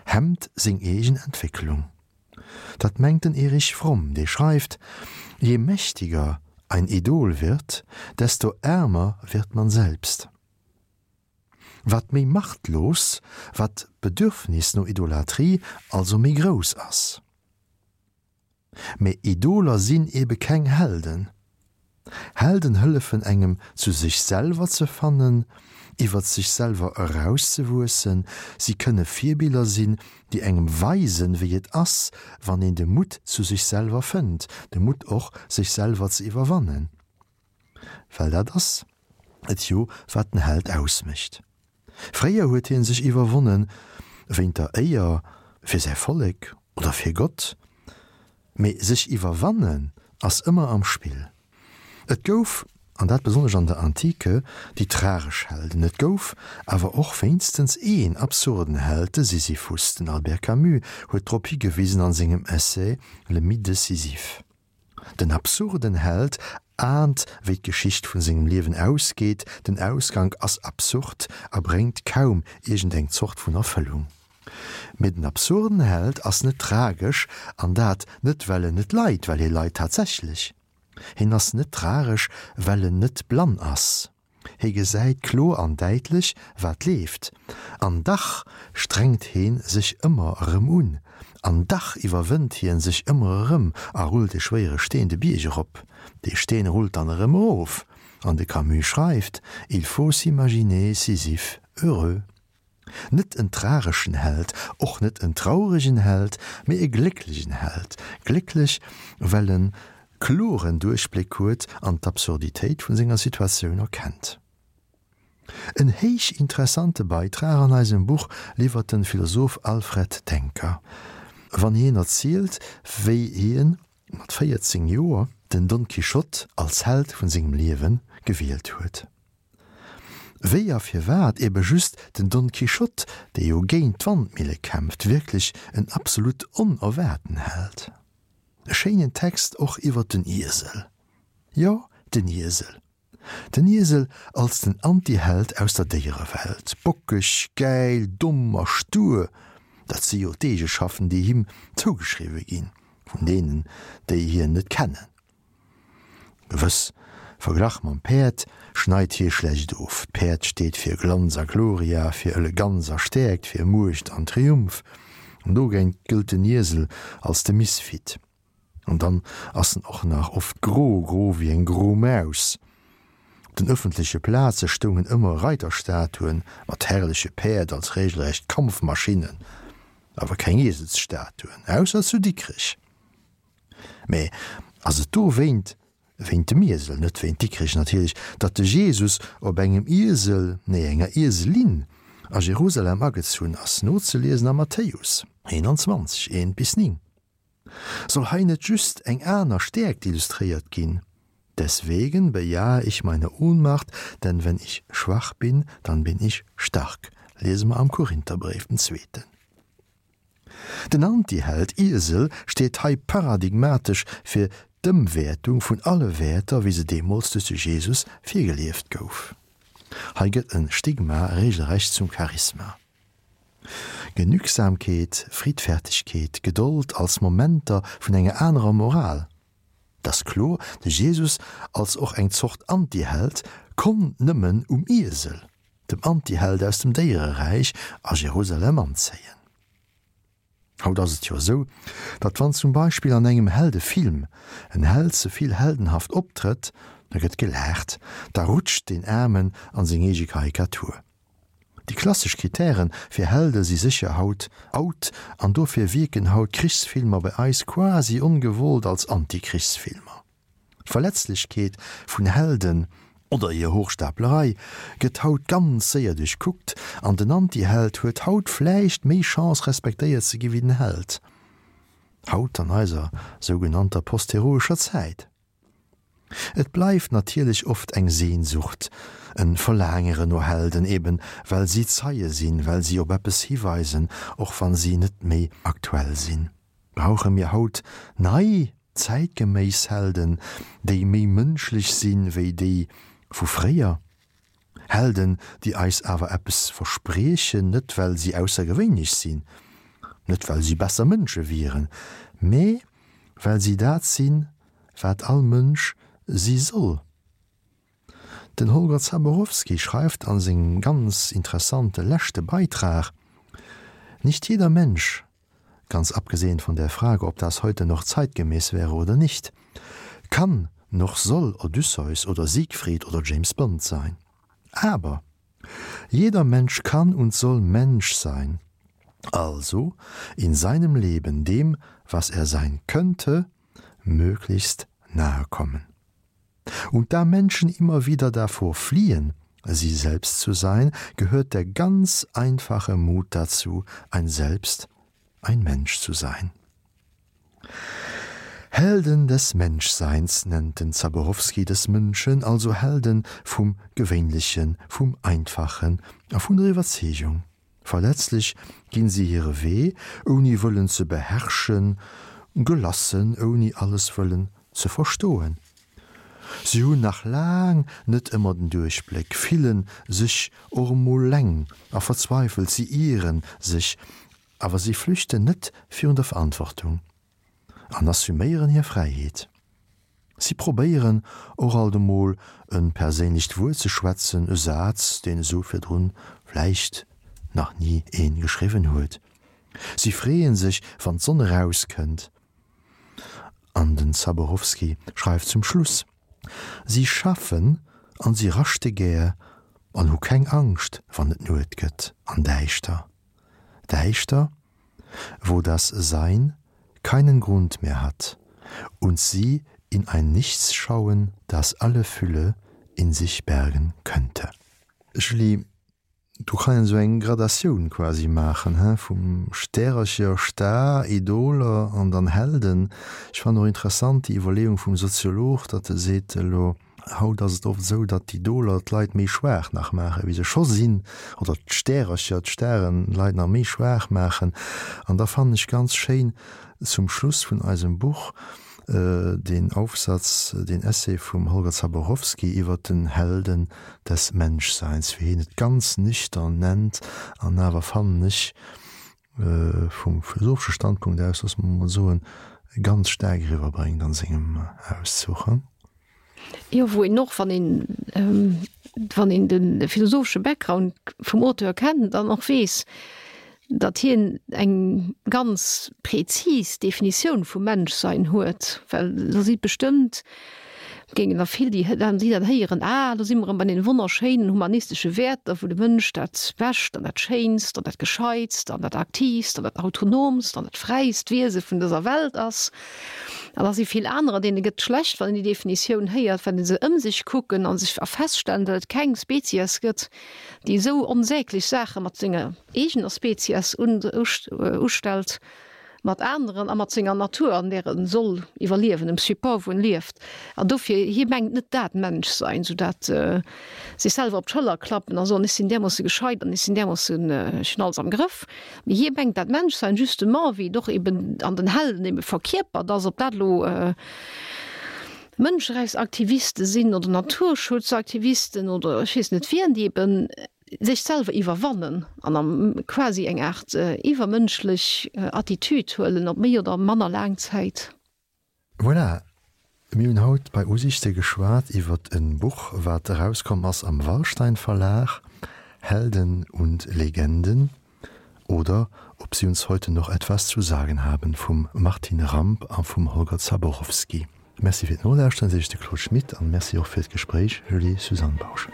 hemmt seng eegen Entwécklung. Dat mengt den Erich Fromm, dee schreift, Je mächtiger ein Idol wird, desto ärmer wird man selbst. Wat méi machtlos, wat d'Bedürfnis no Idolatrie also méi grouss ass. Mee Idoler sinn ebe keng Helden. Helden hëllefen engem zu sech selwer ze fannen, iwwert sech selwer erauszewuessen, si kënne Virbiller sinn, déi engem weisen, wéi et ass, wann een de Mutt zu sech selwer fënnt, de Mutt och, sech selwer ze iwwerwannen. Well dat ass et jo, wat den Held ausmécht. Fréier huet hien sech iwwerwonnen, wéint der Éier fir säi Vollek oder fir Gott, mee sech iwwerwannen ass ëmmer am Spill. Et gouf, an dat besonnesch an der Antike, déi tragesch Helden, et gouf awer och wéinstens een absurden Held, de Sisyphus. Den Albert Camus huet drop higewisen an sengem Essai Le Mythe de Sisyphe. Den absurden Held ahnt, wéi d'Geschicht vun sengem Liewen ausgeet, den Ausgank ass absurd a bréngt kaum iergendeng Zort vun Erfëllung. Mee den absurden Held ass net tragesch, an dat net well en net leit, well hie leit tatsächlech. Hien ass net tragesch, well en net blann ass. Hie gesäit kloer an däitlech, wat leeft, an dach strengt hee sech ëmmer erëm un, an dach iwwerwënnt hien sech ëmmer erëm a rullt e schwéiere Steen de Bierg erop. Dee Steen rullt dann erëm erof, an de Camus schreift, Il faut s'imaginer Sisyphe heureux. Net en trageschen Held, och net en trauregen Held, mee e glécklegen Held. Glécklech, well en kloren Duerchbléck huet an d'Absurditéit vun senger Situatioun erkennt. En héich interessante Beitrag an eisem Buch liwwert den Philosoph Alfred Denker, wann hien erzielt, wéi hien mat 14 Joer den Don Quichotte als Held vun sengem Liewen gewielt huet. Wéi a firwat ebe just den Don Quichotte, dee jo géint d'Wandmille kämpft, wierklech en absolut onerwaarten Held. E schéinen Text och iwwer den Iesel. Jo, den Iesel. Den Iesel als den Antiheld aus der Déierewelt. Bockeg, gäil, domm a stur, dat si jo d'Eegeschaften, déi him zougeschriwwe ginn, vun deenen, déi hien net kennen. Gewëss, verglach mam Päerd schneit hie schlecht of. D'Päerd steet fir Glanz a Gloria, fir Eleganz a Stäerkt, fir Muecht an Triumph. An dogéint gëllt den Iesel als de Misfit. An dann ass en och nach oft gro, gro wéi eng gro Maus. Op den ëffentleche Plaze stoungen ëmmer Reiterstatuen mat herrleche Päerd als regelrecht Kampfmaschinnen, awer keng Ieselsstatuen, ausser zu Dikrech. Mä ass et dowéint, wéint dem Iesel, net wéint Dikrech natierlech, datt de Jesus op engem Iesel, nee enger Ieselin, a Jerusalem agezunn ass, nozeliesen am Matthäus 21, 1 bis 9? Soll hei net just eng aner Stäerkt illustréiert ginn? Deswegen bejahe ich meine Ohnmacht, denn wenn ich schwach bin, dann bin ich stark, liese mer am Korintherbréif, den zweeten. Den Antiheld Iesel steet hei paradigmatesch fir d'Ëmwäertung vun alle Wäerter, wéi se deemools duerch de Jesus virgelieft gouf. Hei gëtt e Stigma regelrecht zum Charisma. Genügsamkeet, Friddfertigkeet, Gedold als Momenter vun enger anerer Moral. Et ass kloer, de Jesus als och eng Zort Antiheld konnt nëmmen um Iesel, dem Antiheld aus dem Déiereräich, a Jerusalem anzéien. Haut ass et jo esou, datt wann zum Beispill an engem Heldefilm en Held ze vill heldenhaft optrëtt, Da gëtt gelaacht, da rutscht deen Aarmen an seng eege Karikatur. Déi klassesch Kritären fir Helde si sécher haut out an dofir wierken haut Krichsfilmer bei eis quasi ongewollt als Anti-Krichsfilmer. D'Verletzlechkeet vun Helden, oder hir Hochstaplerei, gëtt haut ganz séier duerchkuckt an den Anti-Held huet haut vläicht méi Chance respektéiert ze gi wéi den Held. Haut an eiser sougenannter postheroescher Zäit. Et bleift natierlech oft eng Sehnsucht, en Verlaangeren no Helden, eben well si Zeie sinn, well si op eppes hiweisen, och wann si net méi aktuell sinn. Brauche mir haut nei, zäitgeméiss Helden, déi méi mënschlech sinn wéi déi vu fréier? Helden, déi eis awer eppes verspriechen, net well si aussergewéinlech sinn, net well si besser Mënsche wieren, mee well si dat sinn, wat all Mënsch si soll. Den Holger Zaborowski schreift a sengem ganz interessante leschte Beitrag, Nicht jeder Mensch, ganz abgesehen von der Frage, ob das heute noch zeitgemäß wäre oder nicht, kann noch soll Odysseus oder Siegfried oder James Bond sein. Aber jeder Mensch kann und soll Mensch sein, also in seinem Leben dem, was er sein könnte, möglichst nahe kommen. Und da Menschen immer wieder davor fliehen, sie selbst zu sein, gehört der ganz einfache Mut dazu, ein Selbst, ein Mensch zu sein. Helden des Menschseins nennt den Zaborowsky des Mënschen, also Helden vum Gewéinlechen, vum Einfachen a vun der Iwwerzeegung. Verletzlech ginn si hire Wee, ouni wëllen ze beherrschen, gelassen, ouni alles wëllen ze verstoen. Si hunn nach laang net ëmmer den Duerchbléck, fillen sech och emol leng a verzweifelt, si ieren sech, awer si flüchten net virun der Verantwortung. An assuméieren hir Fräiheet. Si probéieren och alt emol e perséinlecht Wuert ze schwätzen, e Saz, deen esou virdrun vläicht nach ni ee geschriwwen huet. Si freeë sech, wann d'Sonn erauskënnt. An den Zaborowsky schreift zum Schluss, Si schaffen an si raschte gär an hu keng Angscht, wann et Nuet gëtt an däischter. Däischter, wo das Sein keinen Grund mehr hat und sie in ein Nichts schauen, das alle Fülle in sich bergen könnte. Julie, do kann een esou eng Gradatioun quasi maachen, he, vum Stärercher, Star, Idoler an dann Helden. Ech fannen och interessant déi Iwwerleeung vum Soziolog, datt e seet, elo Haut ass et oft esou, datt d'Idoler d'Leit méi schwaach nach maachen, wéi se scho sinn, oder d'Stärercher, d'Staren d'Leit nach méi schwaach maachen. An da fannen ech ganz schéin zum Schluss vun eisem Buch deen Aufsatz, deen Essay vum Holger Zaborowsky iwwert den Helden des Menschseins, wéi hien et ganz nüchtern nennt, an awer fannen ech, vum philosophesche Standpunkt aus, loosse mer emol soen, ganz staark eriwwerbréngt an sengem Auszuch. Jo, wou een och, wann een, wann een de philosophesche Background vum Auteur kennt, dann och weess, datt hien eng ganz prezis Definitioun vum Menschsein huet, well do si bestëmmt Géingen der vill, déi déi dat héieren, Ah, do si mer erëm bei deene wonnerschéinen humanistesche Wäerter, wou de Mënsch dat Bescht an dat Schéinst an dat Gescheitst an dat Aktiivst an dat Autonomst an dat fräist Wiese vun dëser Welt ass. An da si vill anerer, deene gëtt schlecht, wann een déi Definitioun héiert, well se ëm sech kucken a sech a feststellen, datt et keng Spezies gëtt, déi esou onsäglech Saache mat senger eegener Spezies ustellt. mat aneren a mat senger Natur, an där e soll iwwerliewen, dem Support, wou en lieft. An dofir, hie mengt net dat Menschsein, sou dat sech selwer op d'Schëller klappen a soen, ech sinn därmoosse gescheit an ech sinn därmoossen, ech hunn alles am Grëff. Mee hie mengt dat Menschsein justement, wéi et och eben an den Helden ebe verkierpert ass, ob dat elo Mënscherechtsaktiviste sinn oder Naturschutzaktivisten oder ech weess net wien, déi eben sech selwer iwwerwannen an am quasi eng Aart iwwermënschlech Attitude huelen, op méi oder manner laang Zäit. Voilà, mir hunn haut bei Usichte geschwat iwwert e Buch, wat erauskomm ass am Wallstein Verlag, Helden und Legenden oder ob sie uns heute noch etwas zu sagen haben vum Martine Ramp a vum Holger Zaborowsky. Merci fir d'Nolauschteren, seet de Claude Schmit an Merci och fir d'Gespréich, Julie Suzanne Bausch.